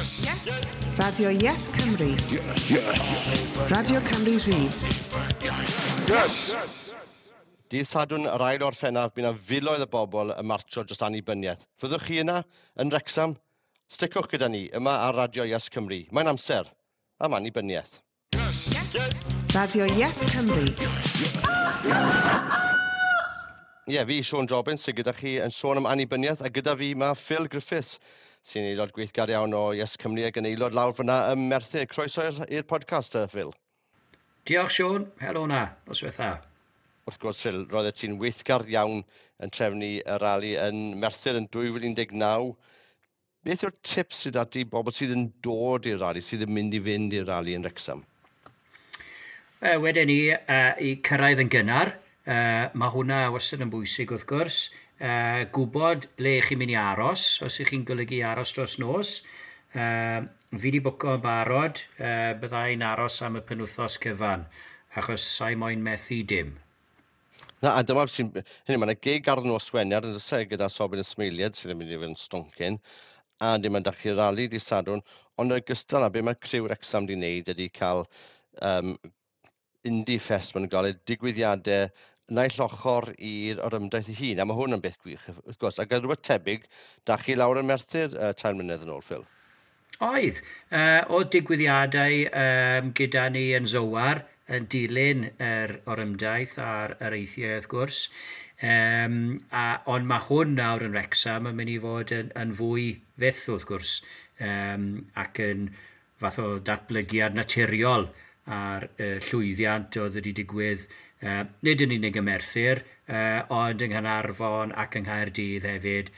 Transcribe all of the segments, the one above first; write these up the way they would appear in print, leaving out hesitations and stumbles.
Yes. Radio Yes Cymru. Radio Cymru Rhydd. Yes! Dydd Sadwrn yr ail Orffennaf, bydd yna filoedd o bobl yn martsio dros annibyniaeth. Fyddwch chi yna yn Wrecsam? Sticwch gyda ni yma ar Radio Yes Cymru. Mae'n amser am annibyniaeth. Yes. Radio Yes Cymru. Ie, yeah, fi, Siôn Jobbins, sydd gyda chi yn sôn am annibyniaeth, a gyda fi mae Phil Griffiths, sy'n aelod gweithgar iawn o Yes Cymru ac yn aelod lawr fyna ym Merthyr. Croeso i'r podcast, Phil. Diolch, Siôn. Helo na. Noswaith dda. Wrth gwrs, Phil, roeddet ti'n weithgar iawn yn trefnu y rali yn Merthyr yn 2019. Beth yw'r tips sydd ati bobl sydd yn dod i'r rali, sydd yn mynd i fynd i'r rali yn Wrexham? Wedyn ni, i cyrraedd yn gynnar. Mae hwnna wastad yn bwysig wrth gwrs. Gwybod le chi'n mynd i aros, os ych chi'n golygu aros dros nos. Fi wedi bwco yn barod, byddai'n aros am y penwythnos cyfan, achos sa'i moyn methu dim. Na, a dyma sy'n... Hynny, mae'n gig ar nos Wener yn dysau gyda Sobyn Ysmeiliad sydd yn mynd i fod yn stoncyn, a dim ond chi rali di Sadwrn, ond yn ogystal â be mae criw Wrecsam di wneud ydy cael Indie Fest, maen nhw'n gael eu digwyddiadau naill ochr i'r orymdaith ei hun, a mae hwn yn beth gwych, wrth gwrs. Ac rhywbeth tebyg, da chi lawr yn Merthyr 3 mlynedd yn ôl, Phil? Oedd. Oedd digwyddiadau gyda ni yn Zowar, yn dilyn yr orymdaith a'r areithiau, wrth gwrs. Ond mae hwn nawr yn Wrecsam yn mynd i fod yn fwy fyth, wrth gwrs, ac yn fath o datblygiad naturiol a'r llwyddiant oedd wedi digwydd, nid yn unig ym Merthyr, ond yng Nghaernarfon ac yng Nghaerdydd hefyd.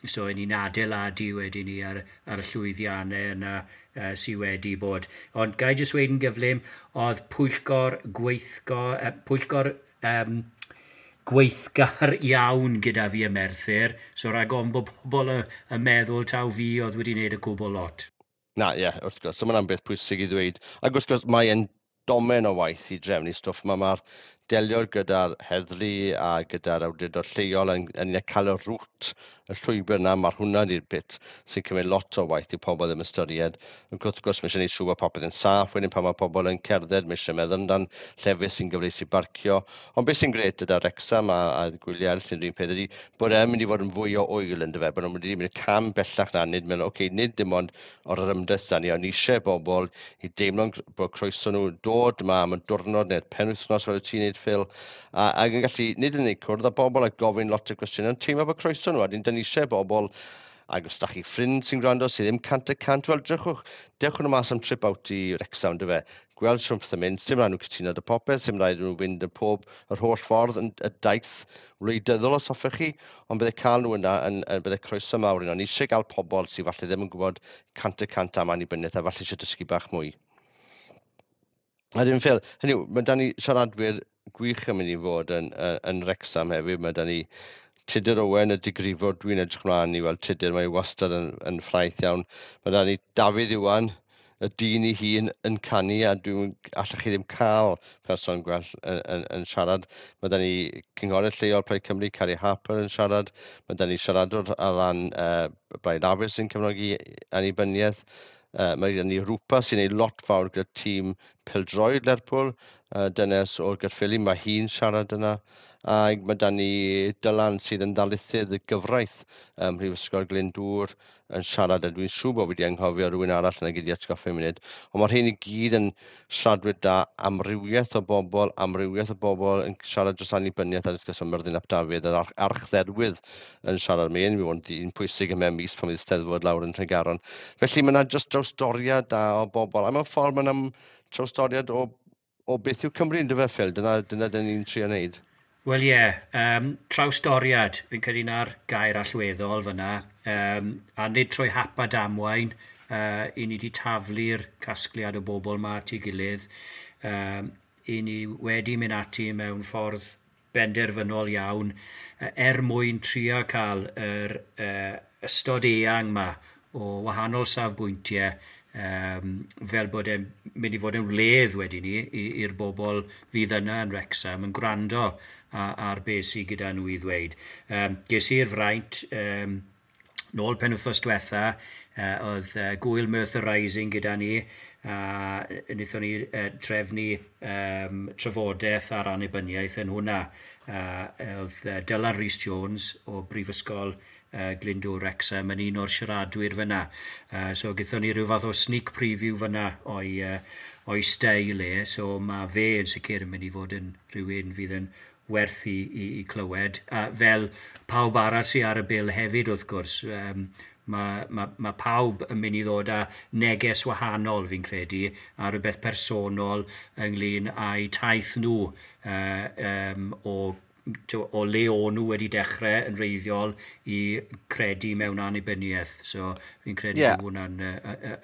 So, y'n ni'n adeiladu wedyn ni ar y llwyddiannau yna sydd wedi bod. Ond ga i jyst weud yn gyflym, oedd pwyllgor pwyllgor gweithgar iawn gyda fi ym Merthyr, so rhag ofn bod pobl yn meddwl taw fi oedd wedi wneud y cwbl lot. Na, ie, wrth gwrs, so mae'n beth pwysig i ddweud. Ac wrth gwrs, mae'n domen o waith i drefnu stwff. Mae'r delio gyda'r heddlu a gyda'r awdurdod lleol yn cael y rwt, y llwybr yna, mae'r hwnna di'r bit sy'n cymryd lot o waith i pobl ddim ystyried. Ac wrth gwrs, mae eisiau gwneud siŵr bod popeth yn saff, wedyn pan mae pobl yn cerdded, mae eisiau meddwl amdan llefydd sy'n gyfleus i barcio. Ond beth sy'n gret gyda Wrecsam a gwyliau eraill sy'n rhywun peth ydy bod e'n mynd i fod yn fwy o ŵyl yn dyfe, bod nhw'n mynd i mynd cam bellach na, nid meddwl, oce, nid dim ond o'r ymdaith da ni, ond eisiau bobl i deimlo'n bod croeso nhw dod yma am y diwrnod neu'r penwythnos fel y ti'n neud, Phil, ac yn gallu nid yn unig cwrdd â bobl a gofyn lot o gwestiynau, ond teimlo bod croeso nhw, a dyn ni eisiau bobl, ac os da chi ffrind sy'n gwrando sydd ddim 100%, wel drychwch, dewch nhw mas am trip out i Wrecsam, dyfe, gweld siwm pethau'n mynd, sim rhaid nhw cytuno dy popeth, sim rhaid nhw fynd yn pob, yr holl ffordd yn y daith wleidyddol os hoffech chi, ond bydde cael nhw yna yn bydde croeso mawr yno. Ni eisiau gael pobl sydd falle ddim yn gwybod 100% am annibyniaeth a falle eisiau dysgu bach mwy. A dim Phil, hynny yw, mae da ni siaradwyr gwych yn mynd i fod yn Wrecsam hefyd. Mae da ni Tudur Owen, y digrifwr, dwi'n edrych mlaen i weld Tudur, mae wastad yn ffraeth iawn. Mae da ni Dafydd Iwan, y dyn ei hun yn canu, a dwi'n allech chi ddim cael person gwell yn siarad. Mae da ni cynghorydd lleol Plaid Cymru, Carrie Harper yn siarad. Mae da ni siaradwr ar ran Blaid Lafur sy'n cefnogi annibyniaeth. Mae gen ni Rwpa sy'n ei lot fawr gyda tîm pêl-droed Lerpwl, dynes o'r Gaerffili, mae hi'n siarad yna. A mae da ni Dylan sydd yn ddarlithydd y gyfraith ym Mhrifysgol Glyndŵr yn siarad, a dwi'n siŵr bod fi wedi anghofio rhywun arall yna gyda atgoffa munud. Ond mae'r rhain i gyd yn siaradwyr da, amrywiaeth o bobl yn siarad dros annibyniaeth, a wrth gwrs mae Myrddin ap Dafydd, yr archdderwydd yn siarad. Mae'n mynd i fod yn pwysig ym mis pan fydd Steddfod lawr yn Tregaron. Felly mae yna jyst drawstoriad da o bobl, a mewn ffordd mae yna trawstoriad o beth yw Cymru yn dyfe, Phil, dyna dyn ni'n trio wneud. Wel ie, trawstoriad, fi'n credu na'r gair allweddol fyna, a nid trwy hap a damwain, i ni wedi taflu'r casgliad o bobl ma at ei gilydd, i ni wedi mynd ati mewn ffordd benderfynol iawn, er mwyn trio cael yr ystod eang ma o wahanol safbwyntiau, fel bod e'n mynd i fod yn wledd wedyn ni i'r bobl fydd yna yn Wrecsam yn gwrando ar beth sydd gyda nhw i ddweud. Ges i'r fraint nôl penwythnos diwetha Oedd Gwyl Merthyr Rising gyda ni, a wnaethon ni trefnu trafodaeth ar annibyniaeth yn hwnna. Oedd Dylan Rhys Jones o Brifysgol Glyndŵr Wrexham yn un o'r siaradwyr fyna. So gaethon ni rhyw fath o sneak preview fyna o'i steil e, so mae fe yn sicr yn mynd i fod yn rhywun fydd yn werth i clywed. A fel pawb arall sydd ar y bil hefyd, wrth gwrs, mae pawb yn mynd i ddod â neges wahanol, fi'n credu, a rhywbeth personol ynglyn â'u taith nhw o le o'n nhw wedi dechrau yn wreiddiol i credu mewn annibyniaeth. So fi'n credu bod hwnna'n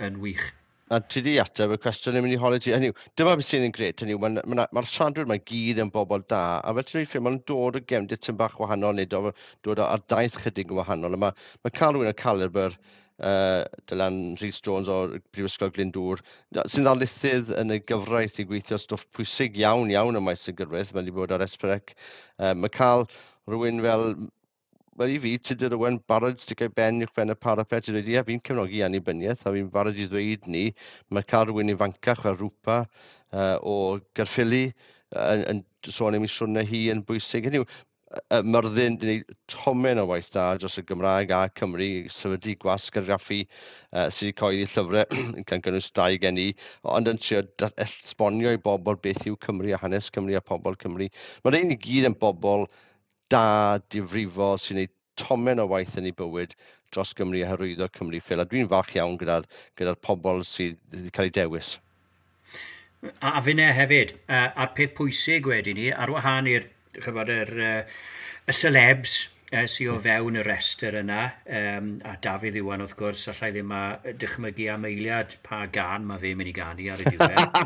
yn wych. A ti di ateb y cwestiwn yn mynd i holi ti. Hynny yw, dyma beth sy'n yn gret, hynny yw, mae'r ma siaradwyr mae gyd yn bobl da, a fel ti'n dweud, maen dod o gefndir tipyn bach wahanol, neu dod ar daith chydig yn wahanol. A mae cael rhywun o caliber Dylan Rhys Jones o'r Brifysgol Glyndŵr, sy'n ddarlithydd yn y gyfraith i gweithio stwff pwysig iawn iawn ym maes y gyfraith, mae wedi bod ar S4C. Mae cael rhywun fel, wel i fi, Tudur Owen, barod sticio ben uwch ben y parapet, i ddweud, ie, fi'n cefnogi annibyniaeth, a fi'n barod i ddweud ni, mae cael rhywun ifancach fel Rwpa o Gaerffili yn sôn am ei siwrne hi yn bwysig. Hynny yw, Myrddin, di wneud tomen o waith da dros y Gymraeg a Cymru, sefydlu gwasg argraffu sydd wedi cyhoeddi llyfrau, gan gynnwys dau gen i, ond yn trio esbonio i bobl beth yw Cymru a hanes Cymru a pobl Cymru. Mae'r ein i gyd yn bobl da, difrifol, sy'n gwneud tomen o waith yn ei bywyd dros Gymru a hyrwyddo Cymru, Phil. A dwi'n falch iawn gyda pobl sydd wedi cael eu dewis. A finne hefyd, a'r peth pwysig wedyn ni, ar wahân i'r chybod, y celebs sydd o fewn y restr yna, a Dafydd Iwan wrth gwrs, allai ddim a dychmygu am eiliad pa gan mae fe'n mynd i ganu ar y diwedd,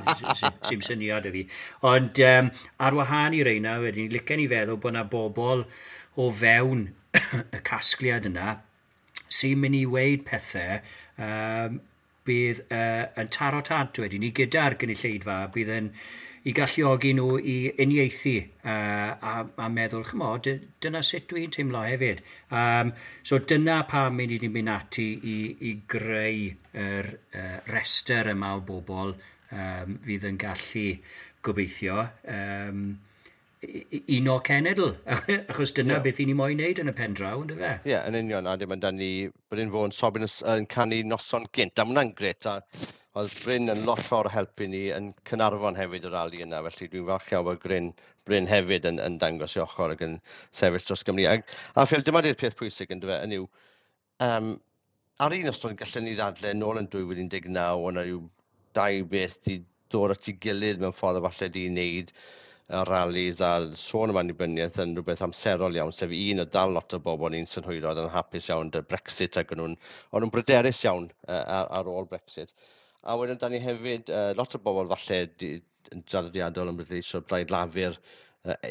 sy'n syniad i fi. Ond ar wahân i reina, wedyn, licen i feddwl bod yna bobl o fewn y casgliad yna sy'n mynd i weud pethau bydd yn taro tant wedyn ni gyda'r gynulleidfa, bydd yn i galluogi nhw i uniaethu a meddwl, chymod, dyna sut dwi'n teimlo hefyd. So dyna pam ni wedi mynd ati i greu yr restr yma o bobl fydd yn gallu gobeithio uno cenedl, achos dyna beth i ni moyn wneud yn y pen draw, ynddo fe? Ie, yeah, yn union, a dim ond ni Bryn Fôn Sobyn yn canu noson gynt, a ma' hwnna'n gret, a oedd Bryn yn lot fawr o helpu ni yn Caernarfon hefyd y rali yna, felly dwi'n falch iawn bod Bryn hefyd yn dangos i ochr ac yn sefyll dros Gymru. A Phil, dyma di'r peth pwysig ynddo fe, yn yw, ar un ystod gallen ni ddadle nôl yn 2019, o'na rhyw dau beth di dod at ei gilydd mewn ffordd o falle di wneud y rallies a sôn am annibyniaeth yn rhywbeth amserol iawn, sef un o dal lot o bobl ni'n synhwyro oedd yn hapus iawn dy Brexit ac o'n nhw'n bryderus iawn ar ôl Brexit. A wedyn da ni hefyd, lot o bobl falle yn draddodiadol yn bleidleisio Blaid Lafur,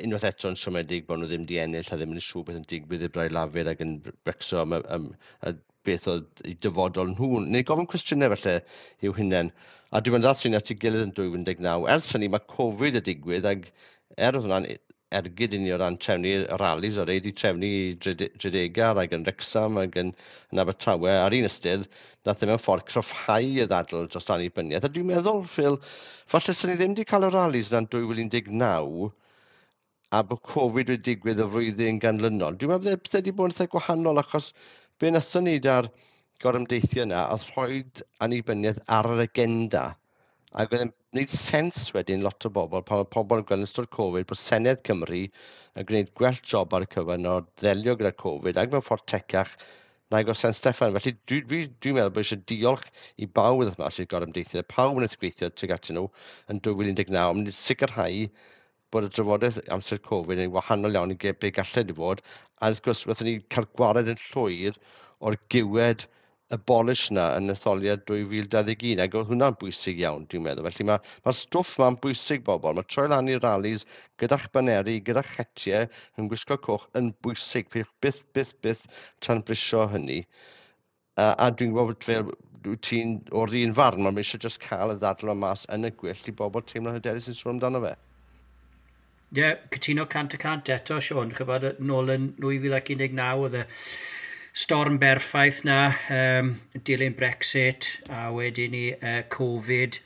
unwaith eto yn siomedig bod nhw ddim di ennill a ddim yn siŵr beth yn digwydd i'r Blaid Lafur ac yn brecso am beth oedd eu dyfodol nhw, neu gofyn cwestiynau falle i'w hunain. A dwi'n meddwl dath at ei gilydd yn 2019. Ers hynny mae Covid y digwydd ac er oedd hwnna'n ergyd i ni o ran trefnu rallies, o reid i trefnu i Dredegar ac yn Wrexham ac yn Abertawe. Ar un ystyr, nath e mewn ffordd cryfhau y ddadl dros annibyniaeth. A dwi'n meddwl, Phil, falle sy'n ni ddim wedi cael y rallies na'n 2019 a bod Covid wedi digwydd y flwyddyn ganlynol. Dwi'n meddwl bydde wedi bod yn eitha gwahanol achos be wnaethon ni da'r gorymdeithio yna oedd rhoi annibyniaeth ar yr agenda. Ac oedd e'n gwneud sens wedyn lot o bobl, pan mae pobl yn gweld yn ystod Covid bod Senedd Cymru yn gwneud gwell job ar y cyfan o ddelio gyda Covid ac mewn ffordd tecach nag o San Steffan. Felly dwi'n dwi, dwi meddwl bod eisiau diolch i bawb wrth mas i'r gorymdeithio, pawb wnaeth gweithio tuag atyn nhw yn 2019, ond mynd i sicrhau bod y drafodaeth amser Covid yn wahanol iawn i be gallai di fod. A wrth gwrs, wnaethon ni cael gwared yn llwyr o'r giwed abolish na yn etholiad 2021, ac oedd hwnna'n bwysig iawn, dwi'n meddwl. Felly mae'r stwff ma'n bwysig, bobl. Mae troi lan i'r rallies gyda'ch baneri, gyda'ch hetiau, yn gwisgo coch yn bwysig. Peidiwch byth, byth, byth tanbrisio hynny. A dwi'n gwybod bod fel ti'n o'r un farn, mae'n eisiau just cael y ddadl yma mas yn y gwyll i bobl teimlo'n hyderus yn sôn amdano fe. Ie, yeah, cytuno 100% eto, Siôn. Chybod, nôl yn 2019 oedd y Storm berffaith na, dilyn Brexit a wedyn ni Covid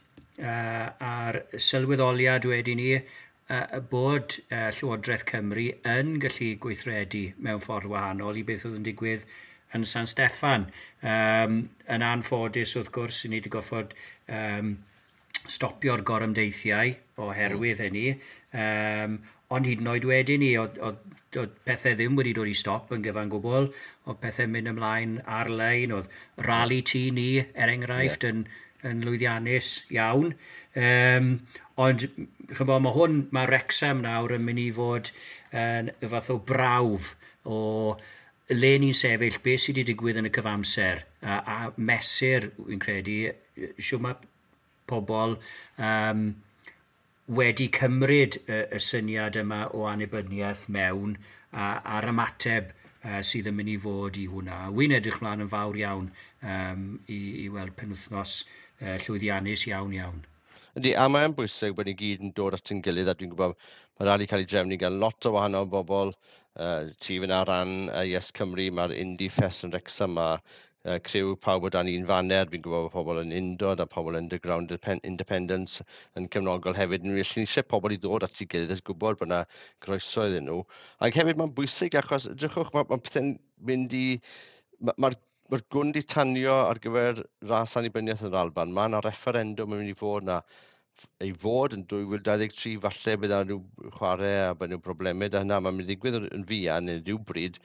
a'r sylweddoliad wedyn ni bod Llywodraeth Cymru yn gallu gweithredu mewn ffordd wahanol i beth oedd yn digwydd yn San Steffan. Yn anffodus, wrth gwrs, ni wedi goffod stopio'r gorymdeithiau oherwydd hynny. Ond hyd yn oed wedyn ni, oedd pethau ddim wedi dod i stop yn gyfan gwbl, oedd pethau'n mynd ymlaen ar-lein, oedd rali tŷ ni, er enghraifft, yn lwyddiannus iawn. Ond, chymod, mae Wrexham nawr yn mynd i fod yn y fath o brawf o le ni'n sefyll, beth sydd wedi digwydd yn y cyfamser, a mesur, wy'n credu, siwr mae pobl wedi cymryd y syniad yma o annibyniaeth mewn a'r ymateb sydd yn mynd i fod i hwnna. Wy'n edrych mlaen yn fawr iawn i weld penwythnos llwyddiannus iawn iawn. Yndi, a mae'n bwysig bod ni gyd yn dod at ein gilydd, a dwi'n gwybod mae rali cael ei drefnu gan lot o wahanol bobl. Ti fyna ran Yes Cymru, mae'r Indie Fest yn Wrexham, a criw pawb o dan un faner. Fi'n gwybod bod pobl yn Undod a pobl Underground Independence yn cefnogol hefyd. Ni eisiau pobl i ddod at ei gilydd a gwybod bod yna groeso iddyn nhw. Ac hefyd mae'n bwysig achos, edrychwch, mae pethau'n mynd i... Mae'r ma gwn di tanio ar gyfer ras annibyniaeth yn yr Alban. Mae yna referendum yn mynd i fod yna. Ei fod yn 2023, falle bydd yna rhyw chwarae a bydd rhyw broblemau da hynna. Mae'n mynd i ddigwydd yn fuan neu rhywbryd.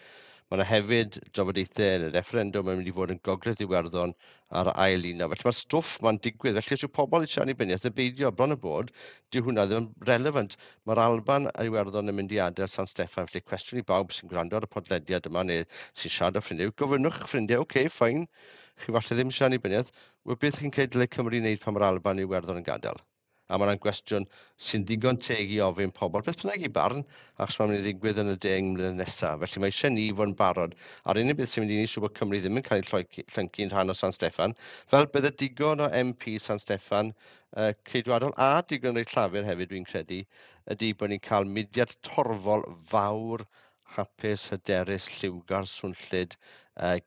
Mae yna hefyd drafodaethau yn y referendum yn mynd i fod yn Gogledd Iwerddon ar ail un. Felly mae'r stwff ma'n digwydd. Felly os yw pobl eisiau annibyniaeth yn beidio, bron y bod, dyw hwnna ddim yn relevant. Mae'r Alban a Iwerddon yn mynd i adael San Steffan. Felly cwestiwn i bawb sy'n gwrando ar y podlediad yma neu sy'n siarad â ffrindiau, gofynnwch eich ffrindiau, oce, okay, fine, chi falle ddim eisiau annibyniaeth, wel beth chi'n credu dylai Cymru wneud pan mae'r Alban a Iwerddon yn gadael? A mae yna'n gwestiwn sy'n ddigon teg i ofyn pobl, beth bynnag i barn, achos mae'n mynd i ddigwydd yn y 10 mlynedd nesaf. Felly mae eisiau ni fod yn barod. A'r unig beth sy'n mynd i ni siŵr bod Cymru ddim yn cael ei llyncu'n rhan o San Steffan, fel bydde digon o MP San Steffan Ceidwadol a digon reit Llafur hefyd, dwi'n credu, ydy bod ni'n cael mudiad torfol fawr, hapus, hyderus, lliwgar, swnllyd,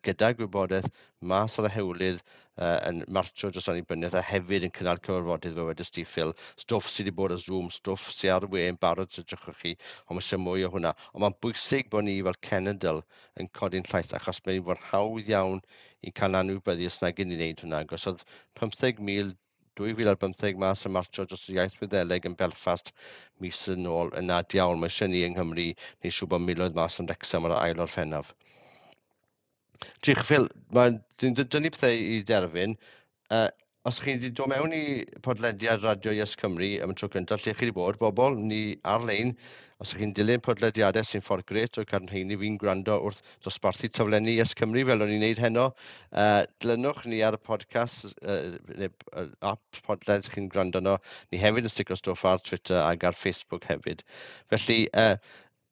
gyda gwybodaeth mas ar y hewlydd yn martio dros annibyniaeth a hefyd yn cynnal cyfarfodydd fel wedys ti, Phil. Stwff sydd wedi bod ar Zoom, stwff sydd ar y we yn barod sydd edrychwch chi, ond mae eisiau mwy o hwnna. Ond mae'n bwysig bod ni fel cenedl yn codi'n llais, achos mae'n fod hawdd iawn i cael anwybyddu os nag i ni wneud hwnna. Achos oedd 15,000 2015 mas yn martio dros yr iaith Wyddeleg yn Belfast mis yn ôl, yna diawl, mae eisiau ni yng Nghymru neu siŵr bod miloedd mas yn Wrexham ar ail Orffennaf. Diolch, Phil, dwi'n dynnu pethau i derfyn. Os chi wedi dod mewn i podlediad Radio Yes Cymru am y tro cyntaf, lle chi wedi bod, bobl, ni ar-lein, os ych chi'n dilyn podlediadau sy'n ffordd gret o'r cadw fi'n gwrando wrth dosbarthu taflenni Yes Cymru fel o'n i'n neud heno, dilynwch ni ar y podcast, neu app podled chi'n gwrando arno. Ni hefyd yn sticio stwff ar Twitter ac ar Facebook hefyd. Felly,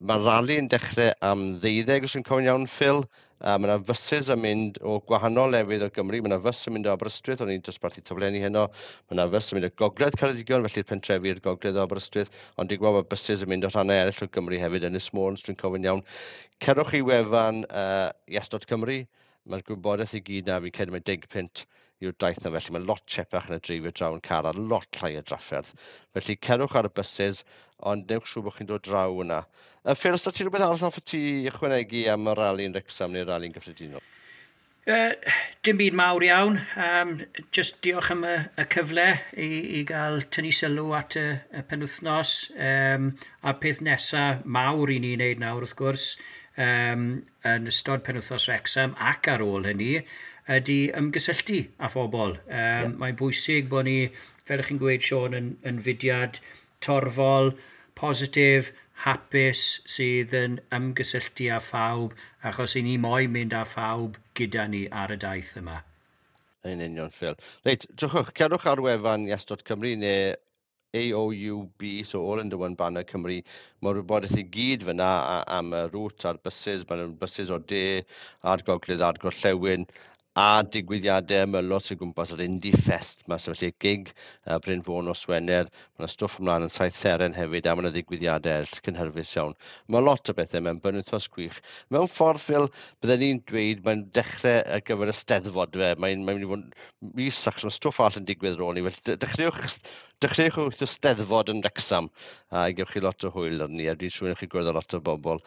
mae'r rali yn dechrau am 12, os yn cofio'n iawn, Phil. Mae yna fysus yn mynd o gwahanol lefydd o Gymru. Mae yna fys yn mynd o Aberystwyth, o'n i'n dosbarthu taflenni heno. Mae yna fys yn mynd o Gogledd Ceredigion, felly'r pentrefi i'r Gogledd o Aberystwyth. Ond dwi'n gwybod bod buses yn mynd o rhannau eraill o Gymru hefyd, Ynys Môn, os dwi'n cofio'n iawn. Cerwch i wefan yes.cymru. Mae'r gwybodaeth i gyd na, fi'n credu mae 10 punt yw'r daith na, felly mae lot chepach yn y dreifio draw yn car a lot llai o drafferth. Felly cerwch ar y buses, ond newch siŵr bod chi'n dod draw yna. Phil, os da ti rhywbeth arall hoffet ti ychwanegu am y rali yn Wrexham neu'r rali'n gyffredinol? Dim byd mawr iawn. Just diolch am y cyfle i gael tynnu sylw at y penwythnos. A peth nesaf mawr i ni wneud nawr, wrth gwrs, yn ystod penwythnos Wrexham ac ar ôl hynny, ydy ymgysylltu â phobl. Mae'n bwysig bod ni, fel ych chi'n gweud, Siôn, yn fudiad torfol, positif, hapus, sydd yn ymgysylltu â phawb, achos i ni moyn mynd â phawb gyda ni ar y daith yma. Yn union, Phil. Reit, drychwch, cerwch ar wefan yes.cymru neu AOUB, so All Under One Banner Cymru. Mae'r wybodaeth i gyd fyna am y route a'r buses. Mae'n buses o'r de a'r gogledd a'r gorllewin. A digwyddiadau ymylol sy'n gwmpas yr Indie Fest 'ma, so felly gig Bryn Fôn nos Wener, mae yna stwff ymlaen yn Saith Seren hefyd, a mae yna ddigwyddiadau eraill cynhyrfus iawn. Mae lot o bethau mewn benwythnos gwych. Mewn ffordd, Phil, bydden ni'n dweud mae'n dechrau ar gyfer y Steddfod, fe. Mae'n mynd i fod mis ac mae stwff arall yn digwydd ar ôl ni. Felly dechreuwch wrth y Steddfod yn Wrexham a gewch chi lot o hwyl arni, a dwi'n siŵr chi gwrdd â lot o bobl.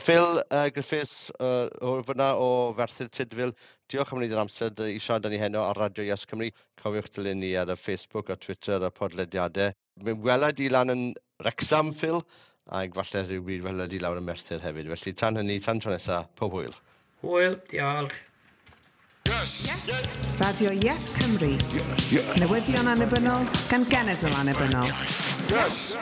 Phil Griffiths o fyna o Ferthyr Tudful, diolch am wneud yr amser i siarad â ni heno ar Radio Yes Cymru. Cofiwch dilyn ni ar y Facebook a Twitter a podlediadau. Mi wela di lan yn Wrexham, Phil, ac falle rhywbryd wela di lawr yn Merthyr hefyd. Felly tan hynny, tan tro nesaf, pob hwyl. Hwyl, diolch. Yes. Yes. Radio Yes Cymru. Yes. Newyddion annibynnol gan genedl annibynnol. Yes.